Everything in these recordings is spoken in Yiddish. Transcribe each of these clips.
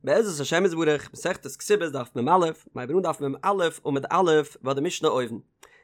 בעזרת השם יתברך, מסכת כתובות דף מ"א, מ'הייבט אן דף מ"א עמוד א' ביי די משנה אויבן.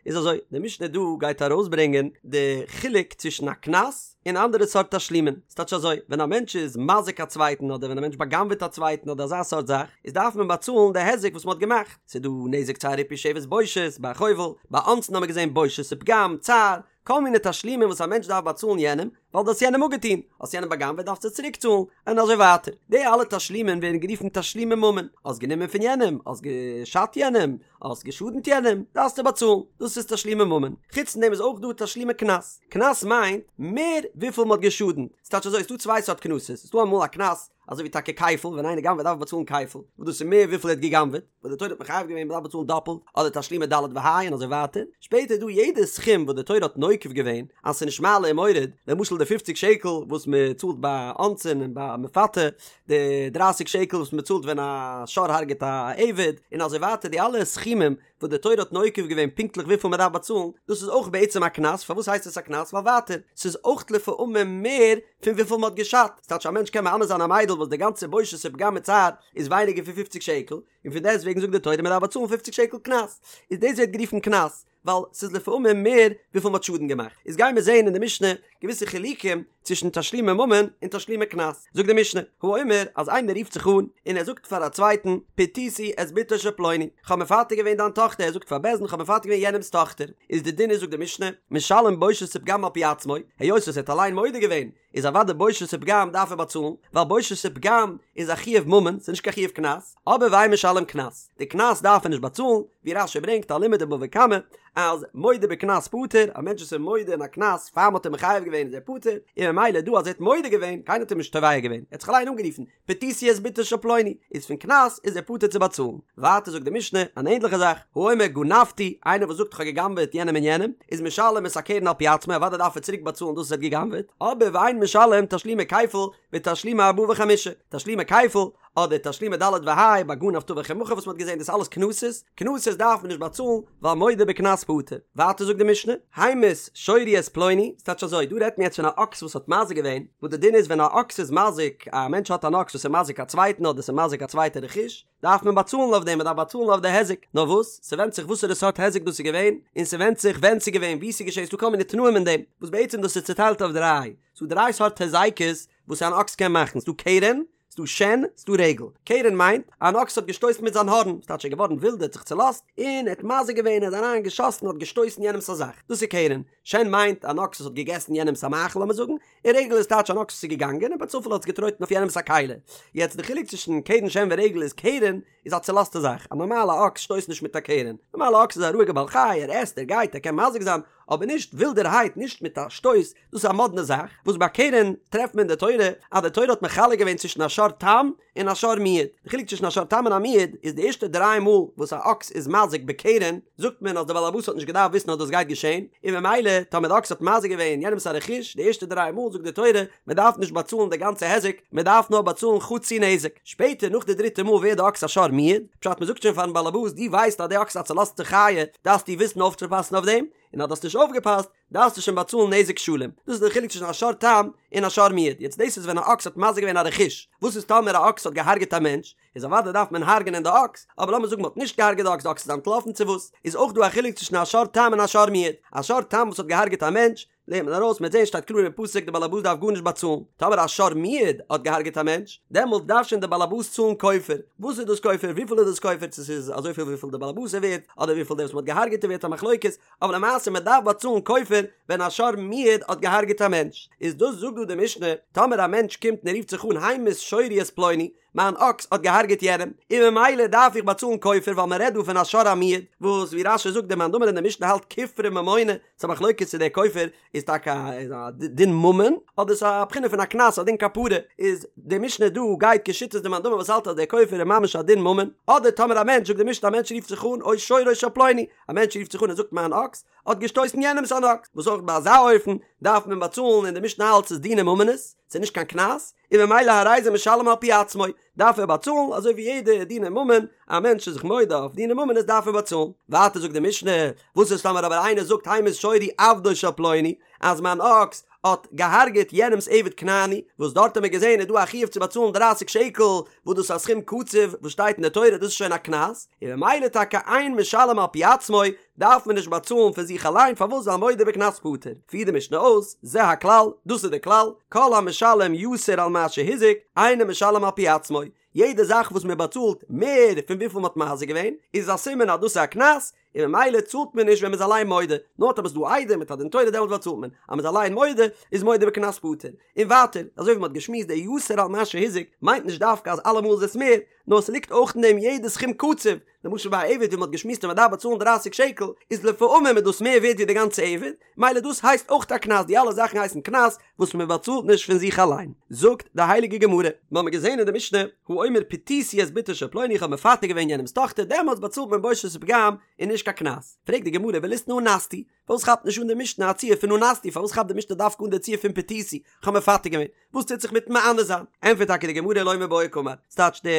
איז אזוי, די משנה דא גייט ארויסברענגען די חילוק צווישן א קנס און אנדערע סארט תשלומין. ס'טייטש אזוי, ווען א מענטש איז מזיק א צווייטן אדער ווען א מענטש בא'גנב'עט א צווייטן אדער אזא סארט זאך, איז דארף מען באצאלן די היזק וואס מ'האט געמאכט. ס'איז דא נזק צער ריפוי שבת בושת, ביי חובל, ביי אונסין האט מען געזען בושת ופגם, צער, כל מיני תשלומים וואס א מענטש דארף באצאלן יענעם, ווייל דו האסט יענעם אפגעטון, האסט יענעם בא'גנב'עט דארפסטו צוריק צאלן, און אזוי ווייטער. די אלע תשלומים ווערן גערופן תשלומי ממון, האסט גענומען פון יענעם, האסט געשאדט יענעם, האסט געשאדנט יענעם, דארפסטו באצאלן, דאס איז תשלומי ממון. חוץ פון דעם איז אויך דא תשלומי קנס. קנס מיינט מער וויפיל מ'האט געשאדנט. ס'טייטש אזוי, ס'דא צוויי סארט קנסות, ס'דא אמאל א קנס אזוי ווי טאקע כפל, ווען איינער גנב'עט דארף ער באצאלן כפל, וואס דאס איז מער וויפיל ער האט גע'גנב'עט. וואס די תורה האט מחייב געווען מ'דארף באצאלן דאפלט, אדער תשלומי ד' וה' און אזוי ווייטער, שפעטער איז דא יעדע סכום וואס די תורה האט נוקב געווען אז ס'איז נישט מעלה און מוריד, למשל די פופציג שקל וואס מ'צאלט ביי אונסין און ביי מפתה, די דרייסיג שקל וואס מ'צאלט ווען א שור הרג'ט א עבד, און אזוי ווייטער די אלע סכומים וואס די תורה האט נוקב געווען פונקטליך וויפיל מ'דארף באצאלן, דאס איז אויך בעצם א קנס, פארוואס הייסט עס א קנס? ווייל ווייטער, ס'איז אויך לפעמים מער פון וויפיל מ'האט געשאדט, ס'טייטש א מענטש קען מאנס זיין א מיידל וואס די גאנצע בושת ופגם מיט צער איז ווייניגער פון פופציג שקל, און פון דעסט וועגן זאגט די תורה מען דארף באצאלן פופציג שקל קנס, איז דאס ווערט גערופן קנס, ווייל ס'איז לפעמים מער וויפיל מ'האט שאדן געמאכט. איז גייען מיר זעהן אין די משנה געוויסע חילוקים צווישן תשלומי ממון און תשלומי קנס. זאגט די משנה, האומר אז איינער רופט זיך אן און ער זאגט פאר א צווייטן, פיתיתי את בתו של פלוני, כ'האב מפתה געווען דיין טאכטער, ער זאגט פאר בית דין כ'האב מפתה געווען יענעמ'ס טאכטער, איז די דין איז זאגט די משנה, משלם בושת ופגם על פי עצמו, היות וואס ער האט אליין מודה געווען, איז אוודאי בושת ופגם דארף ער באצאלן, ווייל בושת ופגם איז א חיוב ממון, ס'איז נישט קיין חיוב קנס, אבער ואין משלם קנס, די קנס דארף ער נישט באצאלן, ווי רש"י ברענגט א לימוד אין בבא קמא, אז מודה בקנס פטור, א מענטש וואס איז מודה אין א קנס פאר מ'האט אים מחייב געווען איז ער פטור, און ממילא דא אז ער האט מודה געווען, קיינער האט אים נישט תובע געווען, ער האט זיך אליין אנגערופן, פיתיתי את בתו של פלוני, איז פון קנס איז ער פטור צו באצאלן. ווייטער זאגט די משנה אן ענדליכע זאך, האומר גנבתי, איינער וואס זאגט כ'האב גע'גנב'עט יענעם און יענעם, איז משלם את הקרן על פי עצמו, אוודאי דארף ער צוריק באצאלן דאס וואס ער האט גע'גנב'עט, אבער ואין משלם תשלומי כפל ותשלומי ארבעה וחמישה, תשלומי כפל, אדער תשלומי ד' וה' ביי גנב טבח ומכר וואס מ'האט געזען דאס אלעס קנסות, קנסות דארף מען נישט באצאלן ווייל מודה בקנס פטור. ווייטער זאגט די משנה, המית שורי את פלוני, ס'טייטש אזוי, דא רעדט מען יעצט פון א אקס וואס האט מזיק געווען, וואס די דין איז ווען א אקס איז מזיק, א מענטש האט אן אקס וואס איז מזיק א צווייטן אדער ס'איז מזיק א צווייטע רכוש, דארף מען באצאלן אויף דעם, מ'דארף באצאלן אויף די היזק, נאר וואס, ס'ווענדט זיך וואסערע סארט היזק דאס איז געווען, און ס'ווענדט זיך ווען ס'איז געווען, וואו ס'איז געשען, ס'דא כל מיני תנאים אין דעם, וואס בעצם דאס איז צוטיילט אויף דריי, ס'דא דריי סארט היזקות וואס אן אקס קען מאכן, ס'דא קרן, ס'דא שן, ס'דא רגל. קרן מיינט, אן אקס האט געשטויסן מיט זיין הארן, ס'טייטש ער איז געווארן ווילד, ער האט זיך צולאזט, און ער האט מזיק געווען, ער איז אריין געשאסן, האט געשטויסן יענעמ'ס א זאך. דאס איז קרן. שן מיינט, אן אקס וואס האט געגעסן יענעמ'ס א מאכל לאמיר זאגן, און רגל איז טייטש אן אקס וואס איז געגאנגען און בצופאל האט עס געטרויטן אויף יענעמ'ס א כלי. יעצט די חילוק צווישן קרן שן ורגל איז קרן איז א צולאזטע זאך, א נארמאלע אקס שטויסט נישט מיט א קרן, נארמאלע אקס איז א רואיגע בעל חי, ער עסט, ער גייט, ער קען מזיק זיין, אבער נישט ווילדערהייט, נישט מיט א שטויס, דאס איז א מאדנע זאך, וואס ביי קרן טרעפט מען אין די תורה אז די תורה האט מחלק געווען צווישן א שור תם און א שור מועד, די חילוק צווישן א שור תם און א מועד איז די ערשטע דריי מאל וואס א אקס איז מזיק בקרן זאגט מען אז די בעל הבית האט נישט געדארפט וויסן אז דאס גייט געשען, און ממילא טאמער די אקס האט מזיק געווען יענעמס א רכוש די ערשטע דריי מאל זאגט די תורה מען דארף נישט באצאלן די גאנצע היזק מען דארף נאר באצאלן חצי נזק, שפעטער נאך די דריטע מאל ווערט די אקס א שור מועד, פשט מען זאגט שוין פארן בעל הבית דו ווייסט אז די אקס איז א צולאזטע חיה דארפסטו וויסן אויפצופאסן אויף דעם, און אז דו האסט נישט אויפגעפאסט דארפסטו שוין באצאלן נזק שלם. דאס איז דער חילוק צווישן א שור תם און א שור מועד. יעצט דאס איז ווען א אקס האט מזיק געווען א רכוש. וואס איז טאמער א אקס האט געהארגעט א מענטש? איז אוודאי דארף מען הרג'נען די אקס, אבער לאמיר זאגן מען האט נישט געהארגעט די אקס, די אקס איז אנטלאפן צו וואס, איז אויך דא א חילוק צווישן א שור תם און א שור מועד. א שור תם וואס האט געהארגעט א מענטש, לערנט מען ארויס, מ'וועט זען שטייט קלאר אין פסוק די בעל הבית דארף גארנישט באצאלן. טאמער א שור מועד האט געהארגעט א מענטש, דעמאלט דארף שוין די בעל הבית צאלן כופר. וואס איז דאס כופר? וויפיל איז דאס כופר? צו ס'איז אזויפיל וויפיל די בעל הבית איז ווערט, אדער וויפיל דער וואס מ'האט געהארגעט איז ווערט א מחלוקת, אבער למעשה מען דארף באצאלן כופר ווען א שור מועד האט געהארגעט א מענטש, איז דאס זאגט דא די משנה, טאמער א מענטש קומט און ער רופט זיך אן המית שורי את פלוני, מיין אקס האט געהארגעט יענעם, און ממילא דארף איך באצאלן כופר ווייל מען רעדט דא פון א שור המועד, וואס ווי רש"י זאגט דער מאן דאמר אין די משנה האלט כופרא ממונא, ס'איז א מחלוקת צו דער כופר איז טאקע א דין ממון אדער ס'איז א בחינה פון א קנס א דין כפרה, איז די משנה דא גייט כשיטת די מאן דאמר וואס האלט אז דער כופר איז ממש א דין ממון, אדער טאמער א מענטש זאגט די משנה א מענטש רופט זיך אן או שורו של פלוני, א מענטש רופט זיך אן און זאגט מיין אקס האט געשטויסן יענעמס אן אקס, וואס אויך ביי אזא אופן דארף מען באצאלן און די משנה האלט ס'איז דיני ממונות, ס'איז נישט קיין קנס, און ממילא הרי זה משלם על פי עצמו, דארף ער באצאלן אזוי ווי יעדע דיני ממון, א מענטש איז זיך מודה אויף דיני ממונות דארף ער באצאלן. ווייטער זאגט די משנה, וואס איז טאמער אבער איינער זאגט המית שורי עבדו של פלוני, אז מיין אקס. האט געהארגעט יענעמ'ס עבד כנעני, וואס דארט האט מען געזען איז דא א חיוב צו באצאלן דרייסיג שקל, וואס דאס איז א סכום קצוב וואס שטייט אין די תורה, דאס איז שוין א קנס, און ממילא טאקע אין משלם על פי עצמו, דארף מען נישט באצאלן פון זיך אליין, פארוואס ווייל מודה בקנס פטור. פירט די משנה אויס, זה הכלל, דאס איז די כלל, כל המשלם יתר על מה שהזיק, אינו משלם על פי עצמו, יעדע זאך וואס מען באצאלט מער פון וויפיל מען האט מזיק געווען, איז א סימן אז דאס איז א קנס, און ממילא צאלט מען נישט ווען מען איז אליין מודה, נאר טאמער ס'איז דא עדים מיט א דין תורה דעמאלט באצאלט מען, אז מען איז אליין מודה איז מודה בקנס פטור. און ווייטער, אזוי ווי מען האט געשמועסט די יתר על מה שהזיק מיינט נישט דווקא אז אלעמאל איז עס מער, נאר ס'ליגט אויך אין דעם יעדע סכום קצוב, למשל ביי א עבד ווי מען האט געשמועסט אז מען דארף באצאלן דרייסיג שקל, איז לפעמים איז דאס מער ווערט ווי די גאנצע עבד, מילא דאס הייסט אויך א קנס, די אלע זאכן הייסן קנס וואס מען באצאלט נישט פון זיך אליין. זאגט די הייליגע גמרא, מיר האבן געזען אין די משנה, האומר פיתיתי את בתו של פלוני איך האב מפתה געווען יענעמ'ס טאכטער, דעמאלטס באצאלט מען בושת ופגם און נישט קיין קנס. פרעגט די גמרא וליתני אנסתי, פארוואס כאפט נישט אן די משנה א ציור פון אנסתי, פארוואס כאפט די משנה דווקא אן די ציור פון פיתיתי, איך האב מפתה געווען? וואס טוט זיך מיטן מאנס זיין? ענטפערט טאקע די גמרא לא מיבעיא קאמר, ס'טייטש די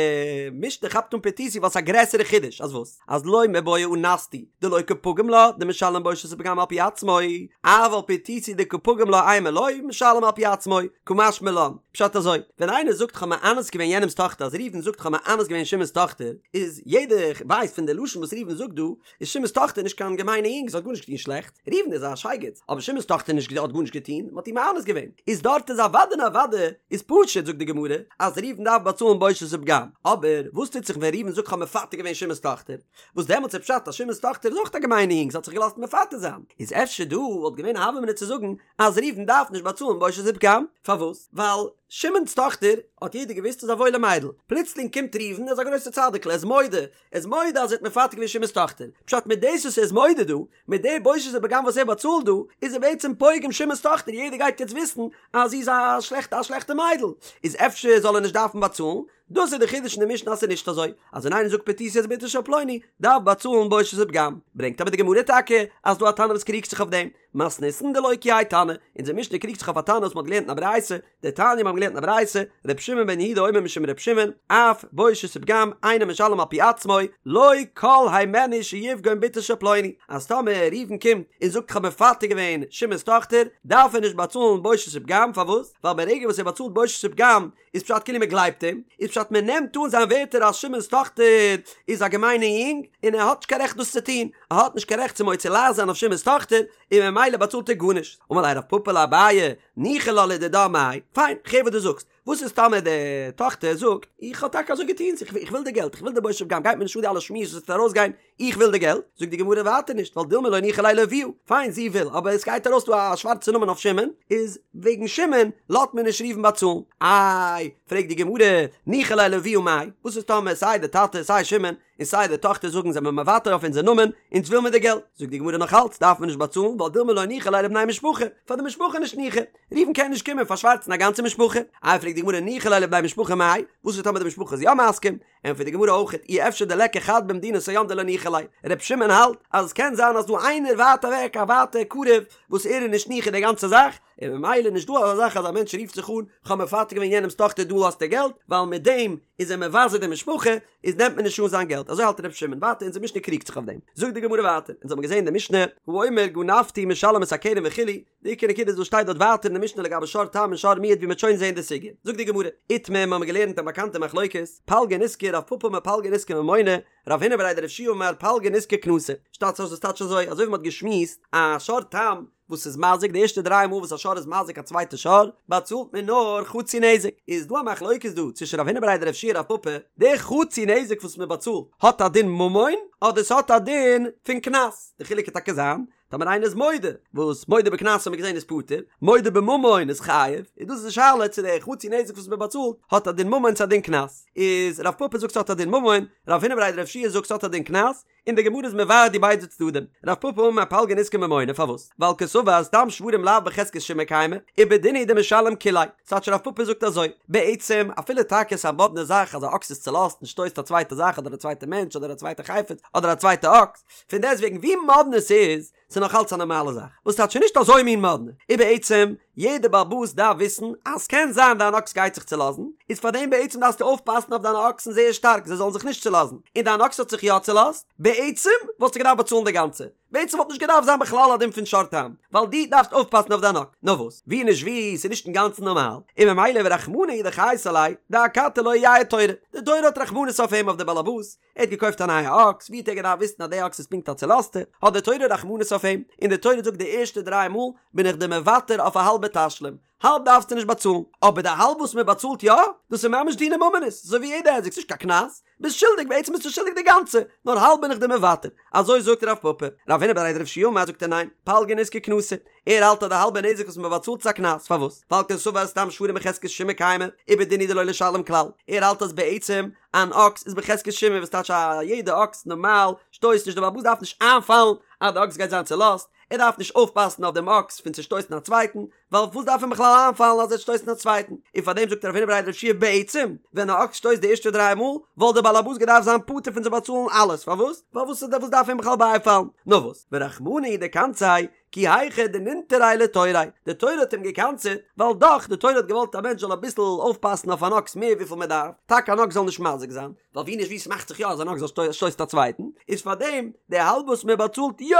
משנה כאפט אן פיתיתי ווייל ס'איז א גרעסערע חידוש, אז וואס? אז לא מיבעיא אנסתי דלא קא פגים לה דמשלם בושת ופגם על פי עצמו, אבל פיתיתי דקא פגים לה אימא לא משלם על פי עצמו, קא משמע לן, פשט אזוי, ווען איינער זאגט כ'האב מאנס געווען יענעמ'ס טאכטער אז ראובן זאגט כ'האב מאנס געווען שמעון'ס טאכטער, איז יעדער ווייסט פון די לשון וואס ראובן זאגט דא, איז שמעון'ס טאכטער נישט קיין געמיינע יונג, זי האט גארנישט געטון שלעכט, ראובן איז א שייגעץ, אבער שמעון'ס טאכטער נישט האט גארנישט געטון, מען האט איר מאנס געווען, איז דארט איז אוודאי און אוודאי איז פשוט זאגט די גמרא אז ראובן דארף באצאלן בושת ופגם, אבער וואס טוט זיך ווען ראובן זאגט כ'האב מפתה געווען שמעון'ס טאכטער, וואס דעמאלטס איז פשט אז שמעון'ס טאכטער איז אויך א געמיינע יונג זי האט זיך געלאזט מפתה זיין, איז אפשר דא וואלט געווען א הוה אמינא צו זאגן אז ראובן דארף נישט באצאלן בושת ופגם, פארוואס? ווייל שמעון'ס טאכטער האט יעדער געוואוסט איז א וואוילע מיידל, פלוצלינג קומט ראובן ער איז א גרויסער צדיק'ל ער איז מודה ער איז מודה אז ער האט מפתה געווען שמעון'ס טאכטער, פשט מיט דאס וואס ער איז מודה דא, מיט די בושת ופגם וואס ער באצאלט דא, איז ער בעצם פוגם שמעון'ס טאכטער, יעדער גייט יעצט וויסן אז זי איז א שלעכטע א שלעכטע מיידל, איז אפשר זאל ער נישט דארפן באצאלן, דאס איז די חידוש אין די משנה אז ס'איז נישט אזוי, אז ווען איינער זאגט פתיתי את בתו של פלוני, דארף באצאלן בושת ופגם, ברענגט אבער די גמרא טאקע אז דא א תנא וואס קריגט זיך אויף דעם, מתניתין דלא כי האי תנא, אונזער משנה קריגט זיך אויף א תנא וואס מ'האט געלערנט אין א ברייתא, דתניא מיר האבן געלערנט אין א ברייתא, ר' שמעון בן יהודה אומר משום ר' שמעון, אף בושת ופגם אינו משלם על פי עצמו, לא כל הימנו שיפגום בתו של פלוני, אז טאמער ראובן קומט און זאגט כ'האב מפתה געווען שמעון'ס טאכטער, דארף ער נישט באצאלן בושת ופגם, פארוואס? ווייל ברגע וואס ער באצאלט בושת ופגם, איז פשט כאילו מען גלייבט אים, איז פשט מען נעמט אן זיין ווערטער אז שמעון'ס טאכטער איז א געמיינע יונג, און ער האט נישט קיין רעכט דאס צו טון, ער האט נישט קיין רעכט צו מוציא לעז זיין אויף שמעון'ס טאכטער, און ממילא באצאלט ער גארנישט. אמר ליה רב פפא לאביי, ניחא לה לדידה מאי, פיין, כ'הער וואס דו זאגסט, וואס איז טאמער די טאכטער זאגט, איך האב טאקע אזוי געטון, איך וויל די געלט, איך וויל די בושת ופגם, גייט מיר נישט אן די אלע שמועות וואס וועט ארויסגיין, איך וויל די געלט, זאגט די גמרא ווייטער נישט, ווייל דילמא לא ניחא ליה לאבוה, פיין זי וויל, אבער עס גייט ארויס דא א שווארצע נאמען אויף שמעון, איז וועגן שמעון לאזט מען נישט ראובן באצאלן, איי, פרעגט די גמרא, ניחא ליה לאבוה מאי, וואס איז טאמער סיי די טאטע סיי שמעון און סיי די טאכטער זאגן זעמער מוותר אויף אונזער נאמען, אונז וויל מיר די געלט, זאגט די גמרא נאך אלץ דארף מען נישט באצאלן ווייל דילמא לא ניחא ליה לבני משפחה, פאר די משפחה נישט ניחא, ראובן קען נישט קומען פארשווארצן א גאנצע משפחה, איי פרעגט די גמרא ניחא ליה לבני משפחה מאי, וואס איז טאמער די משפחה איז יא מסכים, ענטפערט די גמרא אויך אי אפשר דליכא חד במדינת הים דלא ניחא ליה, ר' שמעון האלט אז עס קען זיין אז דא איינער ווייט אוועק א ווייטע קרוב וואס ער איז נישט ניחא די גאנצע זאך, און ממילא נישט דא אזא זאך אז א מענטש רופט זיך אן כ'האב מפתה געווען יענעמ'ס טאכטער דא האסטו געלט, ווייל מיט דעם איז ער מבזה די משפחה, איז נעמט מען נישט אן זיין געלט, אזוי האלט ר' שמעון, ווייטער אונזער משנה קריגט זיך אויף דעם, זאגט די גמרא ווייטער, אונז האבן געזען אין די משנה, האומר גנבתי משלם את הקרן וכו', די עיקר נקודה איז וואס שטייט דארט ווייטער אין די משנה לגבי שור תם און שור מועד ווי מ'וועט שוין זען די סוגיא. זאגט די גמרא, איתמר מיר האבן געלערנט א באקאנטע מחלוקת, פלגא נזקא רב פפא אמר פלגא נזקא ממונא, רב הונא בריה דרב יהושע אמר פלגא נזקא קנסא. שטייט דאס טייטש אזוי, אזוי ווי מ'האט געשמועסט, א שור תם וואס איז מזיק די ערשטע דריי מאל וואס א שור איז מזיק א צווייטע שור, באצאלט מען נאר חצי נזק. איז דא א מחלוקת דא צווישן רב הונא בריה דרב יהושע רב פפא, די חצי נזק וואס מ'באצאלט האט א דין ממון אדער ס'האט א דין פון קנס? די חילוק קען טאקע זיין טאמער איינער איז מודה, וואס מודה בקנס האט מען געזען איז פטור, מודה בממון איז חייב, איז דאס די שאלה צו די חצי נזק וואס מען באצאלט האט א דין ממון צו א דין קנס, איז רב פפא זאגט ס'האט א דין ממון, רב הונא בריה דרב יהושע זאגט ס'האט א דין קנס, און די גמרא איז מבאר די ביידע צדדים, רב פפא אמר פלגא נזקא ממונא פארוואס? ווייל קסבר סתם שוורים לאו בחזקת שימור קיימי, ובדין הוא דמשלם כוליה, ס'טייטש רב פפא זאגט אזוי, בעצם אפילו טאקע ס'איז א מאדנע זאך אז א אקס איז צולאזט און שטויסט א צווייטע זאך אדער א צווייטע מענטש אדער א צווייטע חפץ אדער א צווייטע אקס, פון דעסטוועגן ווי מאדנע ס'איז, ס'איז נאך אלץ א נארמאלע זאך, וואס טייטש נישט אזוי מין מאדנע, און בעצם יעדער בעל הבית דארף וויסן אז ס'קען זיין דיין אקס גייט זיך צולאזן, איז פארדעם בעצם דארפסטו אויפפאסן אויף דיינע אקסן זייער שטארק זיי זאלן זיך נישט צולאזן, און דיין אקס האט זיך יא צולאזט, בעצם וואלסטו געדארפט באצאלן די גאנצע. בעצם וואלט נישט געדארפט זיין בכלל א דין פון שור תם, ווייל דו דארפסט אויפפאסן אויף דיין אקס, נאר וואס, ווי נישט ווי, ס'איז נישט אינגאנצן נארמאל, און ממילא ורחמנא הוא דחייס עליה, דאכתי לא ייעד תורא, די תורה האט רחמנות אויף אים אויף די באלעבאס, ער האט געקויפט א נייע אקס, ווי האט ער געדארפט וויסן אז די אקס איז פונקט א צולאזטע, האט די תורה רחמנות אויף אים, און די תורה זאגט די ערשטע דריי מאל בין איך דיר מוותר אויף א האלבע תשלום, האלב דארפסטו נישט באצאלן, אבער די האלב וואס מען באצאלט יא, דאס איז ממש דיני ממונות, אזוי ווי יעדע היזק, ס'נישט קיין קנס, ביסט שולדיג, בעצם ביסטו שולדיג די גאנצע, נאר האלב בין איך דיר מוותר, אזוי זאגט רב פפא, רב הונא בריה דרב יהושע אמר זאגט ער ניין, פלגא נזקא קנסא, ער האלט אז די האלבע נזק וואס מען באצאלט איז א קנס, פארוואס? ווייל קסבר סתם שוורים בחזקת שמעון קיימי, ובדין הוא דלא לשלם כלל, ער האלט אז בעצם אן אקס איז בחזקת שמעון וואס טייטש א יעדע אקס נארמאל שטויסט נישט די בעל הבית דארף נישט איינפאלן אז די אקס גייט זיין צולאזט, ער דארף נישט אויפפאסן אויף דעם אקס פון צו שטויסן א צווייטן, ווייל וואס דארף אים בכלל איינפאלן אז ער וועט שטויסן א צווייטן? און פאר דעם זאגט רב הונא בריה דרב יהושע בעצם, ווען א אקס שטויסט די ערשטע דריי מאל, וואלט דער בעל הבית געדארפט זיין פטור פון צו באצאלן אלעס, פארוואס? ווייל וואס וואס דארף אים בכלל בייפאלן? נאר וואס, ורחמנא הוא דקנסיה, כי היכי דנינטריה לתוריה, די תורה האט אים געקנס'עט, ווייל דאך, די תורה האט געוואלט א מענטש זאל אביסל אויפפאסן אויף אן אקס מער וויפיל מען דארף, טאקע אן אקס זאל נישט מזיק זיין, ווייל ווי נישט ווי ס'מאכט זיך יא אז אן אקס זאל שטויסט א צווייטן, איז פארדעם די האלב וואס מען באצאלט יא,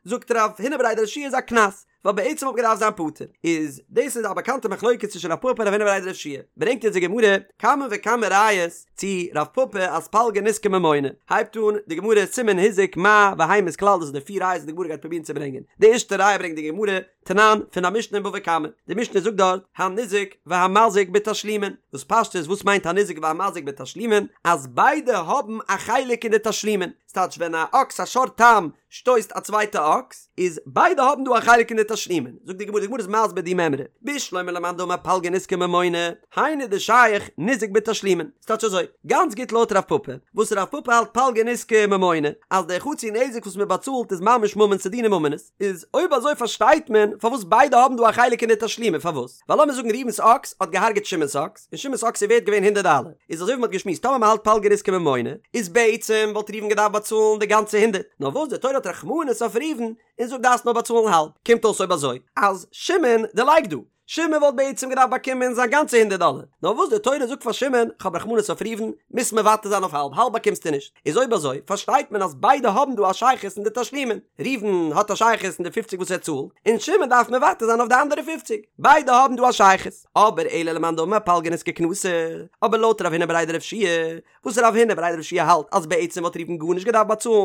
זאגט רב הונא בריה דרב יהושע איז א קנס, ווייל בעצם וואלט געדארפט זיין פטור. איז דאס איז א באקאנטע מחלוקת צווישן רב פפא און רב הונא בריה דרב יהושע ברענגט אונז די גמרא כמה וכמה ראיות צו רב פפא אז פלגא נזקא ממונא, הייבט אן די גמרא סימן הזיק מה והמית כלל דאס איז די פיר ראיות וואס די גמרא גייט פרובירן צו ברענגען, די ערשטע ראיה ברענגט די גמרא, תנן, פון א משנה אין בבא קמא, די משנה זאגט דארט, הניזק והמזיק בתשלומין, וואס פשטות וואס מיינט הניזק והמזיק בתשלומין, אז ביידע האבן א חלק אין די תשלומין, ס'טייטש ווען א אקס א שור תם שטויסט א צווייטע אקס, איז ביידע האבן דא א חלק אין די תשלומין, זאגט די גמרא, די גמרא איז מסביר די מימרא, בשלמא למאן דאמר פלגא נזקא ממונא, היינו דשייך ניזק בתשלומין, ס'טייטש אזוי, גאנץ גוט לויט רב פפא, וואס רב פפא האלט פלגא נזקא ממונא, אז די חצי נזק וואס מ'באצאלט איז ממש ממון ס'איז דיני ממונות, איז אויב אזוי פארשטייט מען פארוואס ביידע האבן דא א חלק אין די תשלומין, פארוואס? ווייל לאמיר זאגן ראובן'ס אקס האט געהארגעט שמעון'ס אקס, און שמעון'ס אקס איז ווערט געווען הונדערט דאלער, איז אזוי ווי מ'האט געשמועסט טאמער מ'האלט פלגא נזקא ממונא, איז בעצם וואלט ראובן געדארפט באצאלן די גאנצע הונדערט, נאר וואס די תורה האט רחמנות אויף ראובן און זאגט דארפסט נאר באצאלן האלב, קומט אויס אויב אזוי אז שמעון דערלייגט דא, שמעון וואלט בעצם געדארפט באקומען זיין גאנצע הונדערט דאלער, נאר וואס די תורה זאגט פאר שמעון, כ'האב רחמנות אויף ראובן, מוזט מוותר זיין אויף האלב, האלב באקומסטו נישט. איז אויב אזוי פארשטייט מען אז ביידע האבן דא א שייכות אין די תשלומין, ראובן האט א שייכות אין די פופציג וואס ער צאלט, און שמעון דארף מוותר זיין אויף די אנדערע פופציג, ביידע האבן דא א שייכות. אבער אלא למאן דאמר פלגא נזקא קנסא, אבער לויט רב הונא בריה דרב יהושע וואס רב הונא בריה דרב יהושע האלט אז בעצם וואלט ראובן גארנישט געדארפט באצאלן,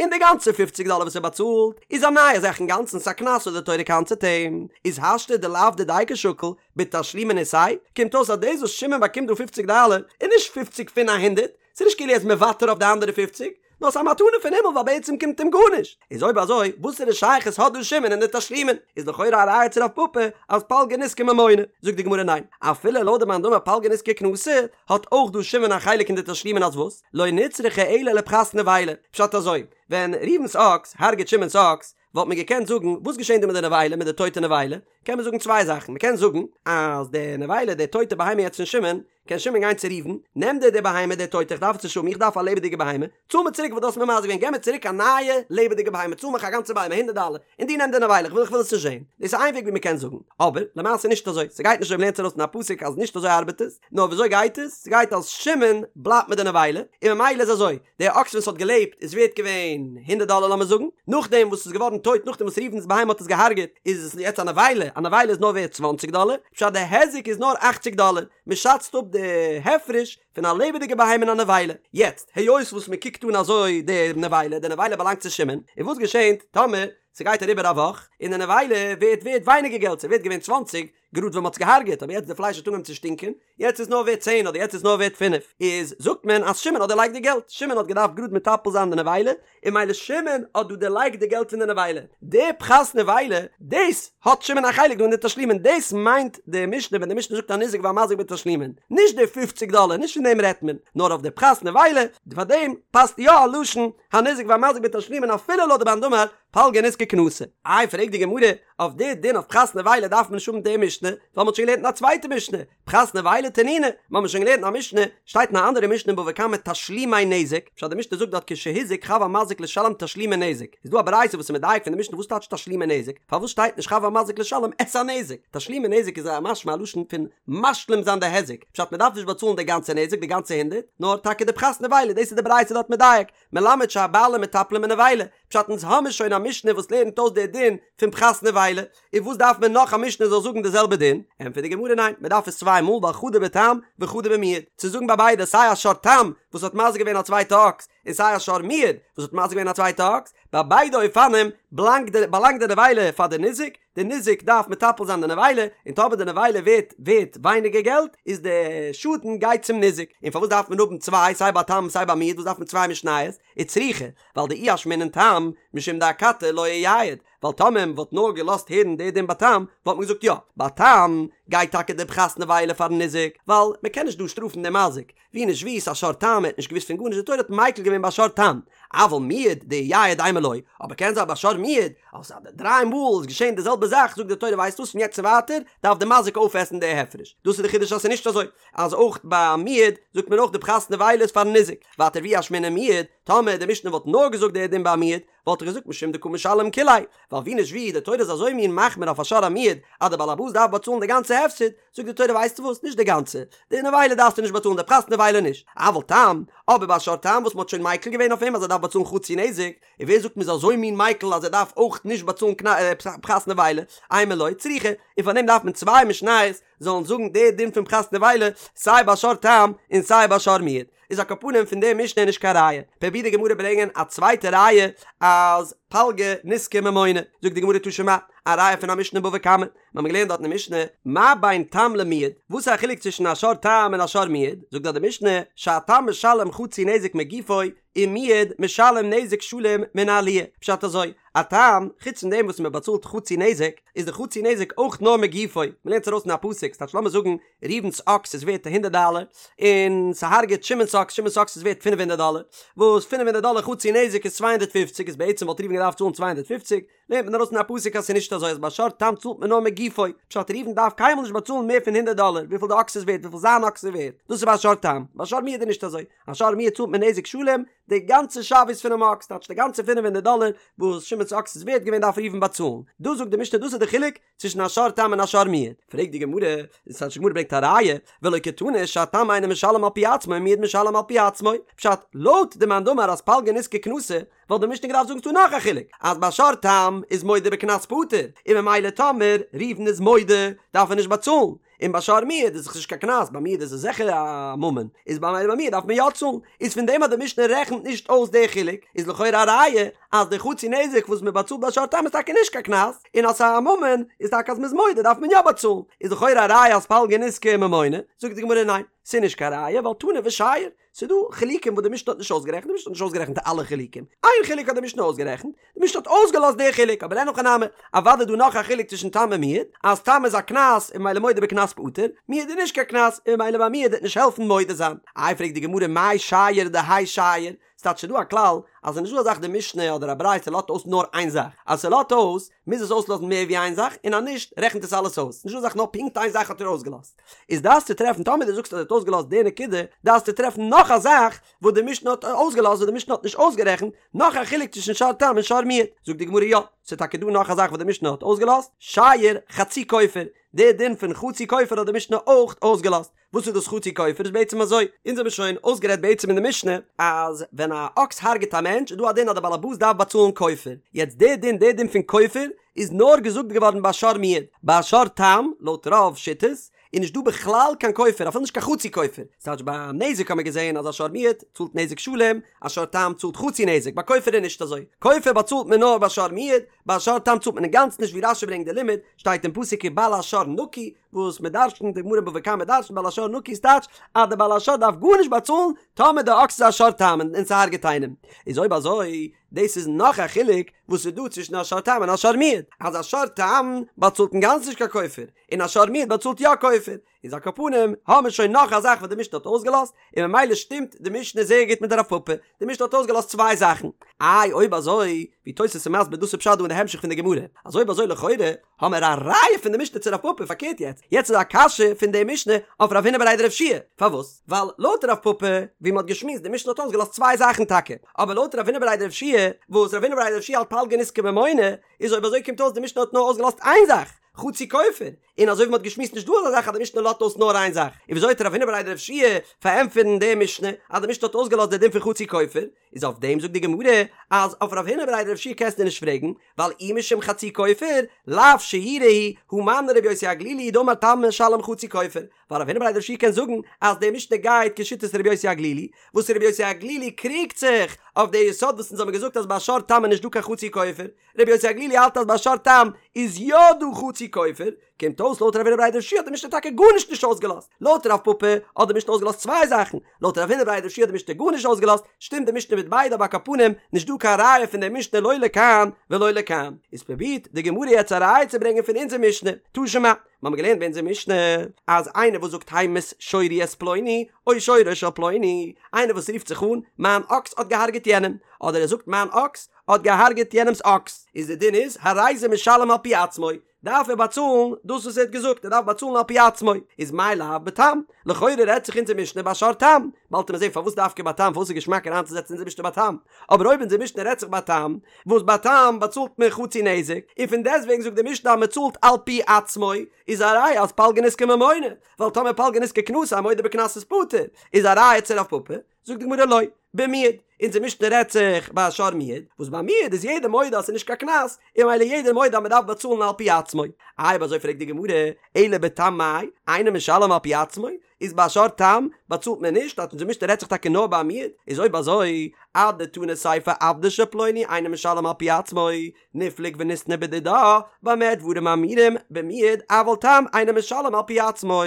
און די גאנצע פופציג דאלער וואס ער באצאלט איז א נייע זאך אינגאנצן ס'א קנס וואס די תורה קנס'עט אים, איז השתא דלאו דידיה קא שקיל בתשלומין איתיה, קומט אויס אז דאס וואס שמעון באקומט דא פופציג דאלער איז נישט פופציג פון א הונדערט, ס'איז נישט כאילו ער איז מוותר אויף די אנדערע פופציג, נאר ס'איז א מתנה פון הימל ווייל בעצם קומט אים גארנישט. איז אויב אזוי, וואסערע שייכות האט דא שמעון אין די תשלומין? איז לכאורה א ראיה צו רב פפא אז פלגא נזקא ממונא. זאגט די גמרא ניין, אפילו לויט די מאן דאמר פלגא נזקא קנסא, האט אויך דא שמעון א חלק אין די תשלומין אז וואס? לא נצרכא אלא לפחת נבילה. פשט אזוי, ווען ראובן'ס אקס הרג'ט שמעון'ס אקס, וואלט מען געקענט זאגן, וואס געשען דא מיט די נבילה, מיט די טויטע נבילה? קען מען זאגן צוויי זאכן, מען קען זאגן אז די נבילה, די טויטע בהמה יעצט פון שמעון, קען שמעון גיין צו ראובן, נעם דיר די בהמה די טויטע איך דארף עס נישט האבן איך דארף א לעבעדיגע בהמה, צאל מיר צוריק וואס דו האסט מיר מזיק געווען געב מיר צוריק א נייע לעבעדיגע בהמה צאל מיך א גאנצע בהמה הונדערט דאלער און דו נעם די נבילה איך וויל איך וויל עס נישט זען, דאס איז איין וועג ווי מען קען זאגן, אבער למעשה נישט אזוי, ס'גייט נישט אזוי מ'לערנט ארויס פון א פסוק אז נישט אזוי ארבעט עס, נאר וויאזוי גייט עס, ס'גייט אז שמעון בלייבט מיט די נבילה, און ממילא איז אזוי, די אקס ווען ס'האט געלעבט איז ווערט געווען הונדערט דאלער לאמיר זאגן, נאכדעם וואס ס'איז געווארן טויט נאכדעם וואס ראובן'ס בהמה האט עס געהארגעט איז עס יעצט א נבילה, א נבילה איז נאר ווערט צוואנציג דאלער, פשט די היזק איז נאר אכציג דאלער, מען שאצט אפ די הפרש פון א לעבעדיגע בהמה און א נבילה. יעצט, היות וואס מען קוקט אן אזוי די נבילה, די נבילה באלאנגט צו שמעון, און וואס געשענט טאמער ס'גייט אריבער א וואך און די נבילה ווערט ווערט ווייניגער געלט, ס'ווערט געווען צוואנציג גראד ווען מ'האט עס געהארגעט, אבער יעצט די פלייש האט אנגעהויבן צו שטינקען, יעצט איז נאר ווערט צען אדער יעצט איז נאר ווערט פינף, איז זאגט מען אז שמעון האט דערלייגט די געלט, שמעון האט געדארפט גראד מטפל זיין די נבילה, און ממילא שמעון האט דא דערלייגט די געלט פון די נבילה, די פחת נבילה, דאס האט שמעון א חלק דא אין די תשלומין, דאס מיינט די משנה ווען די משנה זאגט הניזק והמזיק בתשלומין, נישט די פופציג דאלער, נישט פון דעם רעדט מען, נאר אויף די פחת נבילה, פאר דעם פאסט יא א לשון הניזק והמזיק בתשלומין אפילו לויט די מאן דאמר פלגא נזקא קנסא. איי פרעגט די גמרא, אויף די דין אויף פחת נבילה דארף מען נישט האבן די משנה, ווייל מ'האט שוין געלערנט אין א צווייטע משנה, פחת נבילה תנינא, מ'האמיר שוין געלערנט אין א משנה, שטייט אין א אנדערע משנה אין בבא קמא תשלומי נזק, פשט די משנה זאגט דארט כשהזיק חב המזיק לשלם תשלומי נזק, איז דא א ברייתא וואס איז מדייק פון די משנה וואס טייטש תשלומי נזק, פארוואס שטייט נישט חב המזיק לשלם את הנזק? תשלומי נזק איז א משמע א לשון פון משלים זיין די היזק, פשט מ'דארף נישט באצאלן די גאנצע נזק די גאנצע הונדערט, נאר טאקע די פחת נבילה, דאס איז די ברייתא דארט מדייק, מלמד שהבעלים מטפלין בנבילה. פשט אונז האמיר שוין א משנה וואס לערנט אויס די דין פון פחת נבילה, און וואס דארף מען נאך א משנה זאל זאגן די זעלבע דין? ענטפערט די גמרא ניין, מען דארף עס צוויי מאל ווייל חדא בתם וחדא במועד, צו זאגן ביי ביידע סיי א שור תם וואס האט מזיק געווען א צווייטע אקס און סיי א שור מועד וואס האט מזיק געווען א צווייטע אקס, ביי ביידע אופנים בלאנגט די באלאנגט די נבילה פאר די ניזק, די ניזק דארף מטפל זיין די נבילה, און טאמער די נבילה ווערט ווערט ווייניגער געלט איז די שאדן גייט צום ניזק, און פארוואס דארף מען האבן צוויי סיי ביי תם סיי ביי מועד וואס דארף מען צוויי משניות? וצריכא, ווייל דאי אשמעינן תם משום דאכתי לא אייעד, ווייל טאמער מען וואלט נאר געלאזט הערן די דין ביי תם, וואלט מען געזאגט יא, ביי תם גייט טאקע די פחת נבילה פארן ניזק, ווייל מען קען נישט דא שטראפן דעם מזיק, ווי נישט ווי ס'איז א שור תם, ער האט נישט געוואוסט פון גארנישט, די תורה האט מיקל געווען ביי שור תם, אבל מועד דאייעד אימא לא, אבער קען זיין ביי שור מועד, אז די דריי מאל איז געשען די זעלבע זאך, זאגט די תורה ווייסט וואס פון יעצט און ווייטער דארף די מזיק אויפעסן די הפרש, דאס איז די חידוש אז ס'איז נישט אזוי אז אויך ביי מועד זאגט מען אויך די פחת נבילה איז פארן ניזק, ווייטער ואי אשמעינן מועד, טאמער די משנה וואלט נאר געזאגט די דין ביי מועד, וואלט איך געזאגט משום דקא משלם כוליה, ווייל ווי נישט ווי, די תורה איז אזוי מין מחמיר אויף א שור המועד, אז די בעל הבית דארף באצאלן די גאנצע הפסד, זאגט די תורה ווייסטו וואס, נישט די גאנצע, די נבילה דארפסטו נישט באצאלן די פחת נבילה נישט, אבל תם, אבער ביי א שור תם וואס מען האט שוין מיקל געווען אויף אים אז ער דארף באצאלן חצי נזק, און ווער זאגט מען איז אזוי מין מיקל אז ער דארף אויך נישט באצאלן פחת נבילה, אימא לא צריכא, און פאר דעם דארף מען צוויי משניות זאלן זאגן די דין פון פחת נבילה סיי ביי שור תם און סיי ביי שור מועד. איז על כל פנים פון די משנה נישט קיין ראיה. פרובירט די גמרא ברענגען א צווייטע ראיה אז פלגא נזקא ממונא. זאגט די גמרא תא שמע, א ראיה פון א משנה בבא קמא. מיר האבן געלערנט דארט אין די משנה, מה בין תם למועד, וואס איז א חילוק צווישן א שור תם און א שור מועד? זאגט דארט די משנה, שהתם משלם חצי נזק מגופו, ומועד משלם נזק שלם מן העליה. פשט אזוי, א תם, חוץ פון דעם וואס מען באצאלט חצי נזק, איז די חצי נזק אויך נאר מגופו, מען לערנט עס ארויס אין א פסוק, ס'טייטש לאמיר זאגן ראובן'ס אקס איז ווערט הונדערט דאלער, און ס'הארגעט שמעון'ס אקס, שמעון'ס אקס איז ווערט פינף הונדערט דאלער, וואס פינף הונדערט דאלער חצי נזק איז 250, איז בעצם וואלט ראובן געדארפט צאלן 250, לערנט מען ארויס אין א פסוק אז ס'איז נישט אזוי אז ביי שור תם צאלט מען נאר מגופו, פשט ראובן דארף קיינמאל נישט באצאלן מער פון הונדערט דאלער וויפיל די אקס איז ווערט וויפיל זיין אקס איז ווערט, דאס איז ביי שור תם, ביי שור מועד איז נישט אזוי, א שור מועד צאלט מען נזק שלם, די גאנצע שוויות פונעם אקס, טייטש די גאנצע פינף הונדערט דאלער וואס שמעון'ס אקס איז ווערט געווען דארף ראובן באצאלן, דא זאגט די משנה דאס איז די חילוק צווישן א שור תם און א שור מועד, פרעגט די גמרא, און ס'טייטש די גמרא ברענגט א ראיה, ולא קתני שהתם אינו משלם על פי עצמו ומועד משלם על פי עצמו, פשט, לויט די מאן דאמר אז פלגא נזקא קנסא, וואלט די משנה געדארפט זאגן ס'דא נאך א חילוק, אז ביי שור תם איז מודה בקנס פטור, און ממילא טאמער ראובן איז מודה דארף ער נישט באצאלן, און ביי שור מועד איז דאך נישט קיין קנס, ביי מועד איז עס זיכער א ממון, איז ביי מועד דארף מען יא צאלן, איז פון דעם אז די משנה רעכנט נישט אויס די חילוק, איז לכאורה א ראיה אז די חצי נזק וואס מען באצאלט ביי שור תם איז טאקע נישט קיין קנס, און אז ס'איז א ממון איז טאקע אז מ'איז מודה דארף מען יא באצאלן, איז לכאורה א ראיה אז פלגא נזקא ממונא, זאגט די גמרא ניין, ס'איז נישט קיין ראיה ווייל תנא ושייר, ס'איז דא חילוקים וואס די משנה האט נישט אויסגערעכנט, די משנה האט נישט אויסגערעכנט אלע חילוקים, איין חילוק האט די משנה אויסגערעכנט, די משנה האט אויסגעלאזט די חילוק, אבער אין הכי נמי, אוודאי איז דא נאך א חילוק צווישן תם און מועד, אז תם איז א קנס און ממילא מודה בקנס פטור, מועד איז נישט קיין קנס און ממילא ביי מועד וועט נישט העלפן מודה זיין. איי פרעגט די גמרא מאי שייר דהאי שייר, ס'טייטש ס'איז דא א כלל אז ס'איז נישט דא א זאך די משנה אדער א ברייתא לאזט אויס נאר איין זאך, אז ס'לאזט אויס מוז עס אויסלאזן מער ווי איין זאך און אז נישט רעכנט עס אלעס אויס, נישט דא א זאך נאר פונקט איין זאך האט ער אויסגעלאזט. איז דארפסטו טרעפן טאמער דו זאגסט אז ער האט אויסגעלאזט די נקודה דארפסטו טרעפן נאך א זאך וואס די משנה האט אויסגעלאזט וואס די משנה האט נישט אויסגערעכנט, נאך א חילוק צווישן שור תם און שור מועד. זאגט די גמרא יא, ס'איז טאקע דא נאך א זאך וואס די משנה האט אויסגעלאזט, שייר חצי כופר, די דין פון חצי כופר האט די משנה אויך אויסגעלאזט. וואס איז דאס חצי כופר? איז בעצם אזוי, אונז האבן שוין אויסגערעדט בעצם אין די משנה אז ווען א אקס הרג'ט א מענטש איז דא א דין אז די בעל הבית דארף באצאלן כופר, יעצט די דין די דין פון כופר איז נאר געזאגט געווארן ביי שור מועד, ביי שור תם לויט רוב שיטות איז נישט דא בכלל קיין כופר אפילו נישט קיין חצי כופר, ס'טייטש ביי נזק האט מען געזען אז א שור מועד צאלט נזק שלם, א שור תם צאלט חצי נזק, ביי כופר איז נישט אזוי, כופר באצאלט מען נאר ביי שור מועד, ביי שור תם צאלט מען אינגאנצן נישט ווי רשי ברענגט די לימוד, שטייט אין פסוק ובעל השור נקי, וואס מען דרש'נט די גמרא אין בבא קמא דרש'נט בעל השור נקי איז טייטש אז די בעל השור דארף גארנישט באצאלן טאמער די אקס איז א שור תם און ס'הארגעט איינעם, איז אויב אזוי דאס איז נאך א חילוק וואס איז דא צווישן א שור תם און א שור מועד, אז א שור תם באצאלט אינגאנצן נישט קיין כופר, און א שור מועד באצאלט יא כופר, איז על כל פנים האמיר שוין נאך א זאך וואס די משנה האט אויסגעלאזט, און ממילא שטימט די משנה זייער גוט מיט רב פפא, די משנה האט אויסגעלאזט צוויי זאכן, איי אויב אזוי, ווי תוס' איז מסביר דאס איז פשט דא אין די המשך פון די גמרא, אז אויב אזוי לכאורה האמיר א ראיה פון די משנה צו רב פפא, פארקערט יעצט, יעצט איז א קשיא פון די משנה אויף רב הונא בריה דרב יהושע פארוואס? ווייל לויט רב פפא, ווי מ'האט געשמועסט די משנה האט אויסגעלאזט צוויי זאכן טאקע, אבער לויט רב הונא בריה דרב יהושע וואס רב הונא בריה דרב יהושע האלט פלגא נזקא ממונא, איז אויב אזוי קומט אויס די משנה האט נאר אויסגעלאזט איין זאך, חצי כופר, און אזוי ווי מ'האט געשמועסט נישט דא אזא זאך אז די משנה לאזט אויס נאר איין זאך, און וויאזוי וועט רב הונא בריה דרב יהושע פארענטפערן די משנה אז די משנה האט אויסגעלאזט די דין פון חצי כופר, איז אויף דעם זאגט די גמרא אז אויף רב הונא בריה דרב יהושע קענסטו נישט פרעגן, ווייל אי משום חצי כופר, לאו שיורא הוא, הא מני רבי יוסי הגלילי דאמר תם משלם חצי כופר, ווייל רב הונא בריה דרב יהושע קען זאגן אז די משנה גייט כשיטת רבי יוסי הגלילי, וואס רבי יוסי הגלילי קריגט זיך אויף די יסוד וואס אונז האבן געזאגט אז ביי שור תם איז נישט דא קיין חצי כופר, רבי יוסי הגלילי האלט אז ביי שור תם איז יא דא חצי כופר, קומט אויס לויט רב הונא בריה דרב יהושע האט די משנה טאקע גארנישט נישט אויסגעלאזט, לויט רב פפא האט די משנה אויסגעלאזט צוויי זאכן, לויט רב הונא בריה דרב יהושע האט די משנה גארנישט אויסגעלאזט, שטימט די משנה מיט ביידע אבער על כל פנים נישט דא קיין ראיה פון די משנה לא לכאן ולא לכאן, איז פרובירט די גמרא יעצט א ראיה צו ברענגען פון אונזער משנה, תא שמע, מיר האבן געלערנט ביי אונזער משנה אז איינער וואס זאגט המית שורי את פלוני או שורו של פלוני, איינער וואס רופט זיך אן מיין אקס האט געהארגעט יענעם, אדער ער זאגט מיין אקס האט געהארגעט יענעמס אקס, איז די דין איז הרי זה משלם על פי עצמו, דארף ער באצאלן דאס וואס ער האט געזאגט, ער דארף באצאלן על פי עצמו, איז מאי לאו בתם, לכאורה רעדט זיך אונזער משנה ביי שור תם, באלד וועט מען זען פארוואס דווקא ביי תם, פארוואס איז געשמאק אריינצוזעצן אונזער משנה ביי תם, אבער אויב אונזער משנה רעדט זיך ביי תם, וואס ביי תם באצאלט מען חצי נזק, און פון דעסטוועגן זאגט די משנה אז מען צאלט על פי עצמו, איז א ראיה אז פלגא נזקא ממונא, ווייל טאמער פלגא נזקא קנסא א מודה בקנס איז פטור, איז א ראיה צו רב פפא, זאגט די גמרא לא, במועד, אונזער משנה רעדט זיך ביי א שור מועד, וואס ביי מועד איז יעדער מודה אז ס'איז נישט קיין קנס, און ממילא יעדער מודה אז מ'דארף באצאלן על פי עצמו. איי אויב אזוי פרעגט די גמרא, אלא בתם מאי, אינו משלם על פי עצמו, איז ביי א שור תם באצאלט מען נישט, אז אונזער משנה רעדט זיך טאקע נאר ביי א מועד, איז אויב אזוי, אדתני סיפא עבדו של פלוני אינו משלם על פי עצמו, ניפלוג וניתני בדידה, במה דברים אמורים, במועד, אבל תם אינו משלם על פי עצמו.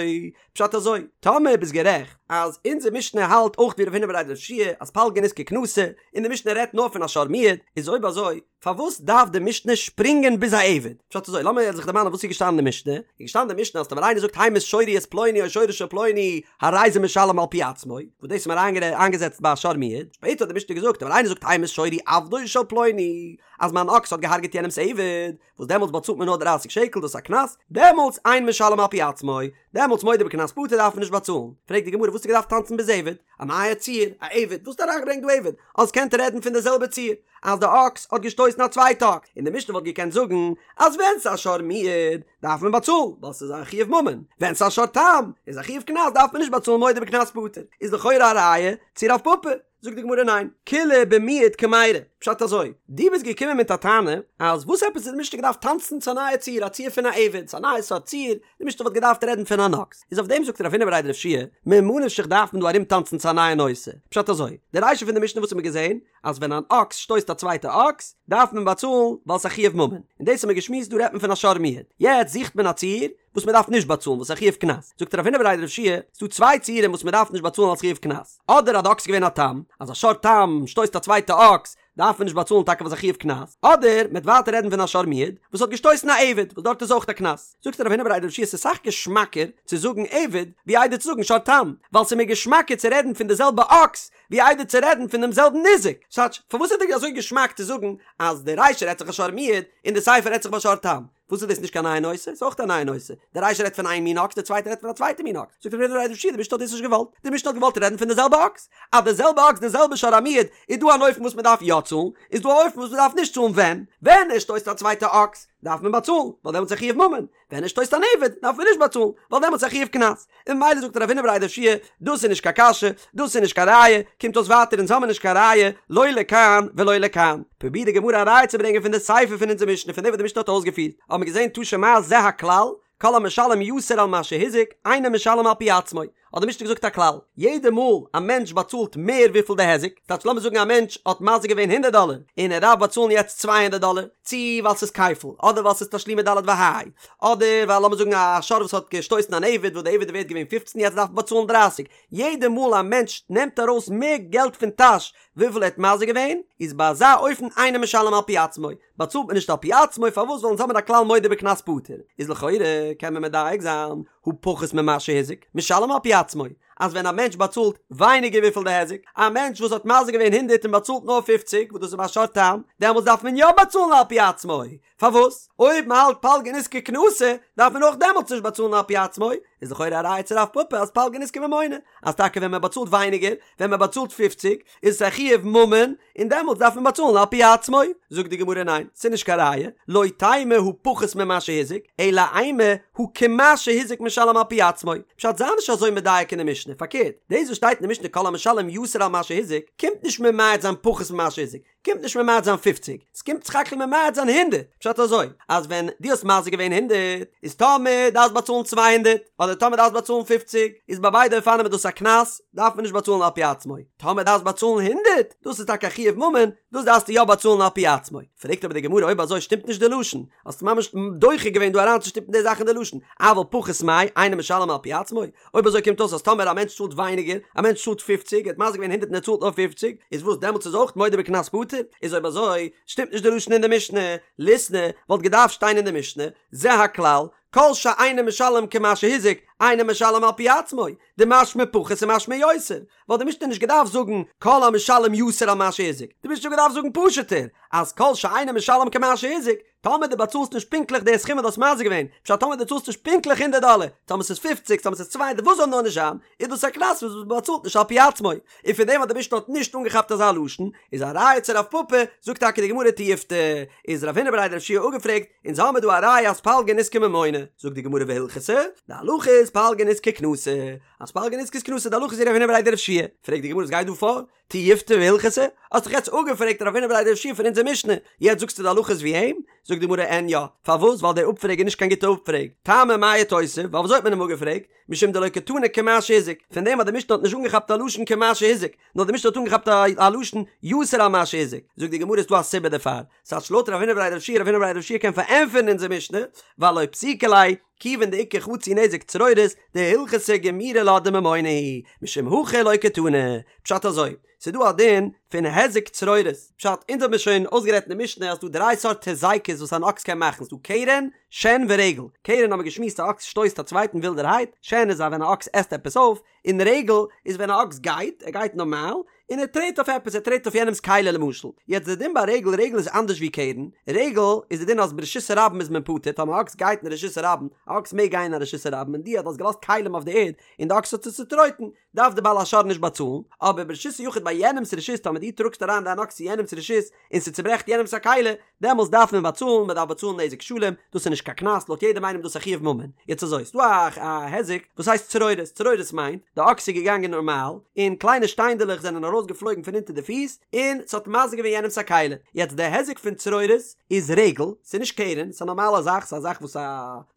פשט אזוי, טאמער ביסט גערעכט אז אונזער משנה האלט אויך ווי רב הונא בריה דרב יהושע אז פלגא נזקא קנסא, און די משנה רעדט נאר פון א שור מועד, איז אויב אזוי פארוואס דארף די משנה שפרינגען ביז א עבד? פשט אזוי, לאמיר זיך דערמאנען וואס איז געשטאנען אין די משנה, איז געשטאנען אין די משנה אז טאמער איינער זאגט המית שורי את פלוני או שורו של פלוני הרי זה משלם על פי עצמו, וואס דאס האט מען איינגעזעצט ביי א שור מועד, שפעטער האט די משנה געזאגט טאמער איינער זאגט המית שורי עבדו של פלוני אז מיין אקס האט געהארגעט יענעמס עבד, וואס דעמאלטס באצאלט מען נאר דרייסיג שקל דאס איז א קנס, דעמאלטס אין משלם על פי עצמו, דעמאלטס מודה בקנס פטור דארף מען נישט באצאלן, פרעגט די גמרא וואס האסטו געדארפט טאנצן ביז עבד, א נייע ציור, א עבד, וואס האסטו אריינגעברענגט דא עבד, האסט געקענט רעדן פון די זעלבע ציור, אז די אקס האט געשטויסן א צווייטע אקס, און די משנה וואלט געקענט זאגן אז ווען ס'איז א שור מועד דארף מען באצאלן ווייל ס'איז א חיוב ממון, ווען ס'איז א שור תם איז א חיוב קנס דארף מען נישט באצאלן מודה בקנס פטור, איז לכאורה א ראיה צו רב פפא. זאגט די גמרא ניין, כולה במועד קמיירי, פשט אזוי, דו ביסט געקומען מיט א טענה אז וואס עפעס האט די משנה געדארפט טאנצן צו א נייע ציור, א ציור פון א עבד, ס'איז א נייע סארט ציור, די משנה וואלט געדארפט רעדן פון אן אקס, איז אויף דעם זאגט רב הונא בריה דרב יהושע, ממה נפשך דארף מען דא ארום טאנצן צו א נייע נושא, פשט אזוי, די רישא פון די משנה וואס האט מען געזען, אז ווען אן אקס שטויסט א צווייטע אקס, דארף מען באצאלן ווייל ס'איז א חיוב ממון, און דאס האט מען געשמועסט דא רעדט מען פון א שור מועד, יעצט זוכט מען א ציור, וואס מען דארף נישט באצאלן וואס איז א חיוב קנס, זאגט רב הונא בריה דרב יהושע, ס'דא צוויי ציורים וואס מען דארף נישט באצאלן אלס חיוב קנס, אדער אז די אקס איז געווען א תם, אז א שור תם שטויסט א צווייטע אקס, דארף מען נישט באצאלן טאקע ווייל ס'איז א חיוב קנס, אדער מען וועט ווייטער רעדן פון א שור מועד וואס האט געשטויסן א עבד, וואס דארט איז אויך א קנס, זאגט רב הונא בריה דרב יהושע ס'איז אסאך געשמאקער צו זאגן עבד ווי איידער צו זאגן שור תם, ווייל ס'איז מיר געשמאקער צו רעדן פון די זעלבע אקס ווי איידער צו רעדן פון דעם זעלבן ניזק, ס'טייטש, פארוואס איז דיר אזוי געשמאק צו זאגן אז די רישא רעדט זיך א שור מועד און די סיפא רעדט זיך ביי שור תם? וואס איז דאס נישט קיין נייע נושא? ס'איז אויך א נייע נושא. די רישא רעדט פון איין מין אקס, די צווייטע רעדט פון א צווייטע מין אקס. זאגט רב הונא בריה דרב יהושע, די משנה האט דאס נישט געוואלט. די משנה האט געוואלט רעדן פון די זעלבע אקס. אז די זעלבע אקס, די זעלבע שור המועד, איז דא אן אופן וואס מען דארף יא צאלן, איז דא א אופן וואס מען דארף נישט צאלן ווען? ווען ער שטויסט א צווייטע אקס, דארף מען באצאלן, ווייל דעמאלטס איז א חיוב ממון. ווען ער שטויסט אן עבד דארף מען נישט באצאלן, ווייל דעמאלטס איז א חיוב קנס. און ממילא זאגט רב הונא בריה דרב יהושע, דאס איז נישט קיין קשיא, דאס איז נישט קיין ראיה, קומט אויס ווייטער אונז האמיר נישט קיין ראיה, לא לכאן ולא לכאן. פרובירט די גמרא א ראיה צו ברענגען פון די סיפא פון אונזער משנה פון דעם וואס די משנה האט אויסגעפירט, האבן מיר געזען תא שמע זה הכלל, כל המשלם יתר על מה שהזיק, אינו משלם על פי עצמו. האט די משנה געזאגט א כלל, יעדע מאל א מענטש באצאלט מער וויפיל די היזק, ס'טייטש לאמיר זאגן א מענטש האט מזיק געווען הונדערט דאלער, און ער דארף באצאלן יעצט 200 דאלער, צי ווייל ס'איז כפל, אדער ווייל ס'איז תשלומי ד' וה', אדער ווייל לאמיר זאגן א שור וואס האט געשטויסן אן עבד וואס די עבד איז ווערט געווען פופצן יעצט דארף מען באצאלן דרייסיג, יעדע מאל א מענטש נעמט ארויס מער געלט פון טאש וויפיל ער האט מזיק געווען, איז ביי אזא אופן אינו משלם על פי עצמו, באצאלט מען נישט על פי עצמו, פארוואס ווייל אונז האבן א כלל מודה בקנס פטור, איז לכאורה קען מען מדייק זיין, הא פחות ממה שהזיק, משלם על פי עצמו. אז ווען א מענטש באצאלט ווייניגער וויפיל די היזק, א מענטש וואס האט מזיק געווען הונדרעט און באצאלט נאר פופציג וואס דאס איז ביי שור תם, דעמאלטס דארף מען יא באצאלן על פי עצמו, פארוואס? אויב מען האלט פלגא נזקא קנסא דארף מען אויך דעמאלטס נישט באצאלן על פי עצמו, איז לכאורה א ראיה צו רב פפא אז פלגא נזקא ממונא, אז טאקע ווען מען באצאלט ווייניגער, ווען מען באצאלט פופציג, איז עס א חיוב ממון, און דעמאלטס דארף מען באצאלן על פי עצמו. זאגט די גמרא ניין, ס'איז נישט קיין ראיה, לא תימא הא פחות ממה שהזיק, אלא אימא הא כמה שהזיק משלם על פי עצמו. פשט זיי נישט אזוי מדייק אין די משנה, פארקערט, דאס וואס שטייט אין די משנה כל המשלם יתר על מה שהזיק, קומט נישט ממעט זיין פחות ממה שהזיק, קומט נישט ממעט זיין פופציג, ס'קומט סך הכל ממעט זיין הונדערט, פשט אזוי, אז ווען דו האסט מזיק געווען הונדערט, איז טאמער דארפסט באצאלן 200, אדער טאמער דארפסט באצאלן פופציג, איז ביי ביידע אופנים איז דאס א קנס, דארף מען נישט באצאלן על פי עצמו, טאמער דארפסט באצאלן הונדערט, דאס איז טאקע א חיוב ממון, דאס דארפסטו יא באצאלן על פי עצמו. פרעגט אבער די גמרא אויב אזוי שטימט נישט די לשון, האסט ממש דוחה געווען דא אריינצושטופן די זאך אין די לשון, אבל פחות מאי, אינו משלם על פי עצמו, אויב אזוי קומט אויס אז טאמער א מענטש צאלט ווייניגער, א מענטש צאלט פופציג, ער האט מזיק געווען הונדערט און ער צאלט נאר פופציג, איז וואס דעמאלטס איז אויך מודה בקנס פטור? איז אויב אזוי שטימט נישט די לשון אין די משנה, ליתני וואלט געדארפט שטיין אין די משנה, זה הכלל, כל שאינו משלם כמה שהזיק, אינו משלם על פי עצמו, דמשמע פחות ומשמע יותר, וואלט די משנה נישט געדארפט זאגן כל המשלם יתר על מה שהזיק, די משנה וואלט געדארפט זאגן פשוט'ער, אז כל שאינו משלם כמה שהזיק, טאמער דו באצאלסט נישט פונקטליך די סכום וואס דו האסט מזיק געווען, פשט טאמער דו צאלסט נישט פונקטליך הונדערט דאלער, טאמער ס'איז פופציג, טאמער ס'איז צוויי הונדערט, וואס זאל נאר נישט זיין, איז דאס א קנס וואס מען באצאלט נישט על פי עצמו. און פון דעם אז די משנה האט נישט אנגעכאפט אזא לשון, איז א ראיה צו רב פפא, זאגט טאקע די גמרא תיובתא, איז רב הונא בריה דרב יהושע אפגעפרעגט, אונז האמיר דא א ראיה אז פלגא נזקא ממונא, זאגט די גמרא והלכתא, די הלכה איז פלגא נזקא קנסא, אז פלגא נזקא איז קנסא, די הלכה איז ווי רב הונא בריה דרב יהושע, פרעגט די גמרא וואס גייט דא פאר? תיובתא והלכתא? האסט דאך יעצט אפגעפרעגט רב הונא בריה דרב יהושע פון אונזער משנה, יעצט זאגסטו די הלכה איז ווי אים? זאגט די גמרא אין יא, פארוואס? ווייל דער אפפרעג איז נישט קיין גוטע אפפרעג, טעמא מאי איתותב, ווייל ווי אזוי האט מען אים אפגעפרעגט? משום דלא קתני כמה שהזיק, פון דעם אז די משנה האט נישט אנגעכאפט א לשון כמה שהזיק, נאר די משנה האט אנגעכאפט א לשון יתר על מה שהזיק, זאגט די גמרא איז דא א סיבה דערפאר, ס'טייטש לויט רב הונא בריה דרב יהושע רב הונא בריה דרב יהושע קען פארענטפערן אונזער משנה, ווייל לא פסיקא ליה, כיוון דאיכא חצי נזק צרורות, דהלכתא גמירי לה דממונא הוא, משום הכי לא קתני. פשט אזוי, ס'איז דא א דין פון היזק צרורות, פשט, אונז האבן מיר שוין אויסגערעדט אין די משנה אז ס'דא דריי סארט היזקות וואס אן אקס קען מאכן, ס'דא קרן, שן ורגל, קרן האבן מיר געשמועסט א אקס שטויסט א צווייטן ווילדערהייט, שן איז א ווען א אקס עסט עפעס אויף, און רגל איז ווען א אקס גייט, ער גייט נארמאל, און ער טרעט אויף עפעס, ער טרעט אויף יענעמ'ס כלי למשל. יעצט די דין ביי רגל, רגל איז אנדערש ווי קרן, רגל איז די דין אז ברשות הרבים איז מען פטור, טאמער א אקס גייט אין רשות הרבים, א אקס מעג גיין אין א רשות הרבים און דו האט האסט געלאזט כלים אויף די ערד און די אקס האט עס צוטרויטן, דארף די בעל השור נישט באצאלן, אבער ברשות היחיד ביי יענעמ'ס רשות טאמער דו טראגסט אריין דיין אקס צו יענעמ'ס רשות און ס'צוברעכט יענעמ'ס א כלי, דעמאלס דארף מען באצאלן, מען דארף באצאלן נזק שלם, דאס איז נישט קיין קנס, לויט יעדעם איינעם איז דאס א חיוב ממון. יעצט אזוי, ס'דא א א היזק וואס הייסט צרורות, צרורות מיינט, די אקס איז געגאנגען נארמאל, און קליינע שטיינדעלעך זענען ארויס געפלויגן פון אונטער די פיס, און ס'האט מזיק געווען יענעמ'ס א כלי. יעצט די היזק פון צרורות איז רגל, ס'איז נישט קרן, ס'איז א נארמאלע זאך, ס'איז א זאך וואס א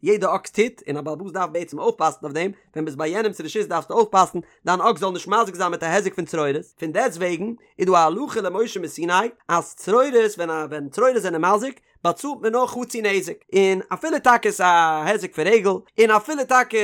יעדע אקס טוט, און א בעל הבית דארף בעצם אויפפאסן אויף דעם, ווען ביסט ביי יענעמ'ס רשות דארפסטו אויפפאסן דיין אקס זאל נישט מזיק זיין מיט א היזק פון צרורות, פון דעסט וועגן איז דא א הלכה למשה מסיני אז צרורות ווען א ווען צרורות זענען מזיק באצאלט מען נאר חצי נזק, און אפילו טאקע ס'איז א היזק פון רגל, און אפילו טאקע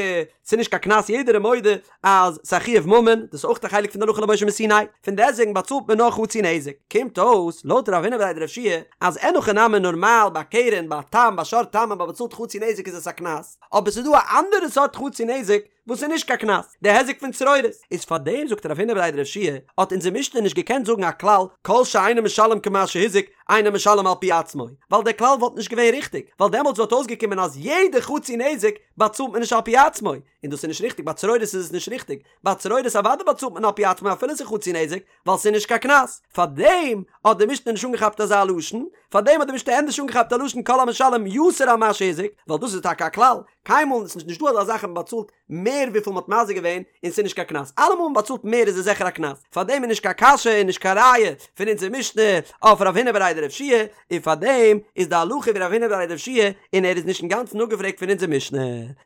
ס'איז נישט קיין קנס יעדער איז מודה אז ס'איז א חיוב ממון, דאס איז אויך א חלק פון די הלכה למשה מסיני, פון דעסט וועגן באצאלט מען נאר חצי נזק. קומט אויס לויט רב הונא בריה דרב יהושע אז אין הכי נמי נארמאל ביי קרן ביי תם ביי שור תם אז מ'באצאלט חצי נזק איז עס א קנס, אבער ס'איז דא א אנדערע סארט חצי נזק וואס איז נישט קיין קנס, די היזק פון צרורות, איז פאר דעם זאגט רב הונא בריה דרב יהושע האט אונזער משנה נישט געקענט זאגן א כלל כל שאינו משלם כמה שהזיק אינו משלם על פי עצמו, ווייל דער כלל וואלט נישט געווען ריכטיג, ווייל דעמאלטס וואלט אויסגעקומען אז יעדע חצי נזק באצאלט מען נישט על פי עצמו, און דאס איז נישט ריכטיג, ביי צרורות איז עס נישט ריכטיג, ביי צרורות אוודאי באצאלט מען על פי עצמו אפילו ס'איז חצי נזק, ווייל ס'איז נישט קיין קנס, פארדעם האט די משנה נישט אנגעכאפט אזא לשון, פארדעם האט די משנה ענדערש אנגעכאפט א לשון כל המשלם יתר על מה שהזיק, ווייל דאס איז טאקע א כלל, קיינמאל איז נישט דא אזא זאך אז מ'באצאלט מער וויפיל מ'האט מזיק געווען און ס'איז נישט קיין קנס, אלעמאל מ'באצאלט מער איז עס זיכער א קנס, פארדעם איז נישט קיין קשיא און נישט קיין ראיה פון אונזער משנה אויף רב הונא בריה דרב יהושע, און פארדעם איז די הלכה ווי רב הונא בריה דרב יהושע און ער איז נישט אינגאנצן אפגעפרעגט פון אונזער משנה.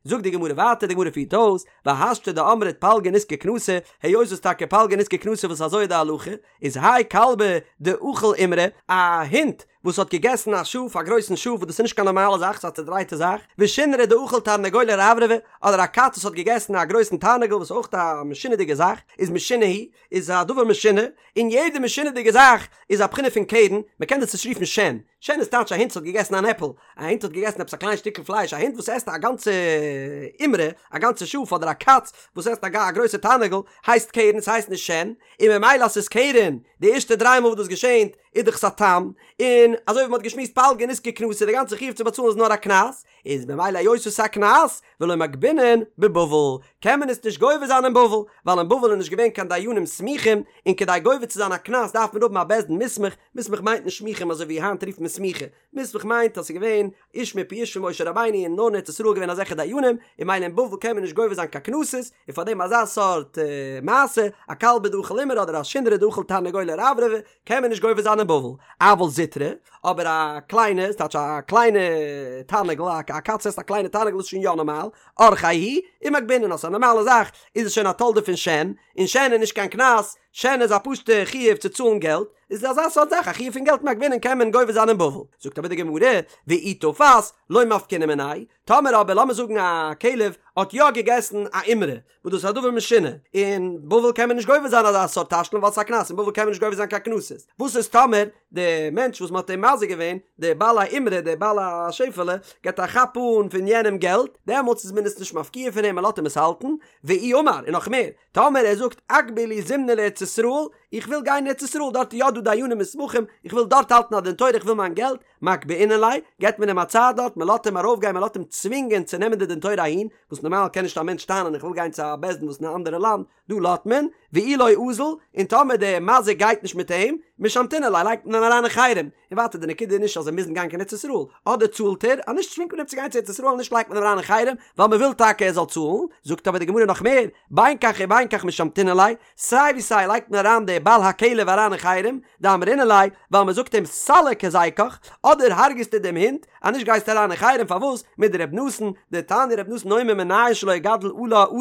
זאגט די גמרא ווייטער, די גמרא פירט אויס, והשתא דאמרת פלגא נזקא קנסא, היות וואס טאקע פלגא נזקא קנסא וואס אזוי איז די הלכה, איז האי כלבא דאכיל אימרי, א הונט. וואס האט געגעסן א שאף, א גרויסן שאף, וואס דאס איז נישט קיין נארמאלע זאך, ס'איז א צעדרייטע זאך, ושונרא דאכל תרנגולא רברבא, אדער א קאץ וואס האט געגעסן א גרויסן תרנגול וואס איז אויך א משונה'דיגע זאך, איז משונה הוא, איז א דבר משונה, און יעדע משונה'דיגע זאך איז א בחינה פון קרן, מ'קען דאס נישט רופן שן, שן איז טייטש א הונט וואס האט געגעסן אן עפל, א הונט האט געגעסן עפעס א קליין שטיקל פלייש, א הונט וואס עסט א גאנצע אימרא, א גאנצע שאף, אדער א קאץ וואס עסט א גרויסע תרנגול, הייסט קרן, ס'הייסט נישט שן, און ממילא אז ס'איז קרן, די ערשטע דריי מאל וואס דאס געשענט, איז דאך עס א תם, און אזוי ווי מ'האט געשמועסט פלגא נזקא קנסא, די גאנצע חיוב צו באצאלן איז נאר א קנס, איז ממילא היות עס איז א קנס, ולא מגבינן בבבל, קען מען עס נישט גובה זיין אין בבל, ווייל אין בבל איז נישט געווען קיין דיינים סמוכים, און כדי גובה צו זיין א קנס דארף מען האבן א בית דין מוסמך, מוסמך מיינט נישט סמיכים אזוי ווי היינט רופט מען סמיכה, מוסמך מיינט אז ס'איז געווען איש מפי איש פון משה רבינו און נאר אין ארץ ישראל געווען אזעלכע דיינים, און ממילא אין בבל קען מען נישט גובה זיין קיין קנסות, און פאר דעם אזא סארט מעשה, א כלבא דאכל אימרא אדער א שונרא דאכל תרנגולא רברבא, קען מען נישט גובה זיין אין בבל, אבל זוטרא, אבער א קליינע, ס'טייטש א קליינע תרנגול, א קאץ עסט א קליינע תרנגול איז שוין יא נארמאל, אורחיה הוא, ומגבינן אז ס'איז א נארמאלע זאך, איז עס שוין א תולדה פון שן, און שן איז נישט קיין קנס, שן איז א פשוטע חיוב צו צאלן געלט, איז אזא סארט זאך א חיוב פון געלט מגבינן קען מען גובה זיין אין בבל. זאגט אבער די גמרא, ואי תפס, לא מפקינן מיניה, טאמער אבער לאמיר זאגן א כלב האט יא געגעסן א אימרא, וואס דאס איז א דבר משונה, אין בבל קען מען נישט גובה זיין אזא סארט תשלום ווייל ס'איז א קנס, אין בבל קען מען נישט גובה זיין קיין קנסות, וואס איז טאמער די מענטש וואס מ'האט אים מזיק געווען, די בעל האימרא, די בעל השעפעלע, געבט א כאפ אן פון יענעם געלט, דעמאלטס איז מען עס נישט מפקיע פון אים, מ'לאזט אים עס האלטן, ואי אמר, און נאך מער, טאמער ער זאגט אגבי לי זימנא לארץ ישראל, איך וויל גיין אין ארץ ישראל, דארט איז יא דא דיינים מוסמכים, איך וויל דארט האלטן א דין תורה, איך וויל מיין געלט, מגבעינן ליה, געבט מען אים א צייט דארט, מען לאזט אים ארויפגיין, מען לאזט אים צווינגען צו נעמען די דין תורה אהין, וואס נארמאל קען נישט א מענטש טענה'ן איך וויל גיין צו א בית דין וואס אין א אנדערע לאנד, דא לאזט מען, ואי לא אזיל, און טאמער דער מזיק גייט נישט מיט אים, משמתינן ליה, לייגט מען אים אריין אין חרם, און ווייטער די נקודה איז נישט אז זיי מוזן גיין קיין ארץ ישראל, אדער צאלט ער, אז נישט צווינגט מען אים צו גיין צו ארץ ישראל, נישט לייגט מען אים אריין אין חרם, ווייל מען וויל טאקע ער זאל צאלן, זאגט אבער די גמרא נאך מער, בין כך ובין כך משמתינן ליה, סיי ווי סיי לייגט מען אריין די בעל הכלב אריין אין חרם, דאמרינן ליה, ווייל מען זאגט אים סליק היזקך, אדער הרג'סטו דעם הונט, אז נישט גייסטו אריין אין חרם, פארוואס? מדר' נתן, דתניא ר' נתן אומר מנין שלא יגדל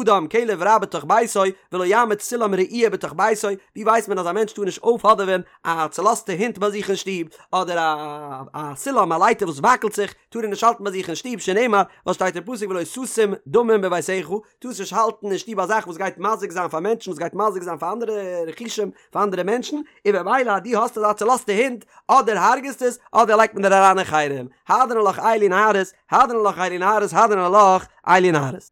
אדם כלב רע בתוך ביתו, ולא יעמיד סולם רעוע בתוך ביתו, ווי ווייסט מען אז א מענטש טאר נישט אויפהאדעווען א צולאזטע הונט ביי זיך אין שטוב, אדער א א סולם א לייטער וואס וואקלט זיך, טאר ער נישט האלטן ביי זיך אין שטוב, שנאמר, וואס שטייט אין פסוק ולא תשים דמים בביתך, טארסט נישט האלטן אין שטוב א זאך וואס גייט מזיק זיין פאר מענטשן, וואס גייט מזיק זיין פאר אנדערע רכושים, פאר אנדערע מענטשן, און במילא אז דו האסט אזא צולאזטע הונט, אדער הרג'סט עס, אדער לייגט מען דיר אריין אין חרם. הדרן עלך אלו נערות, הדרן עלך אלו נערות, הדרן עלך אלו נערות.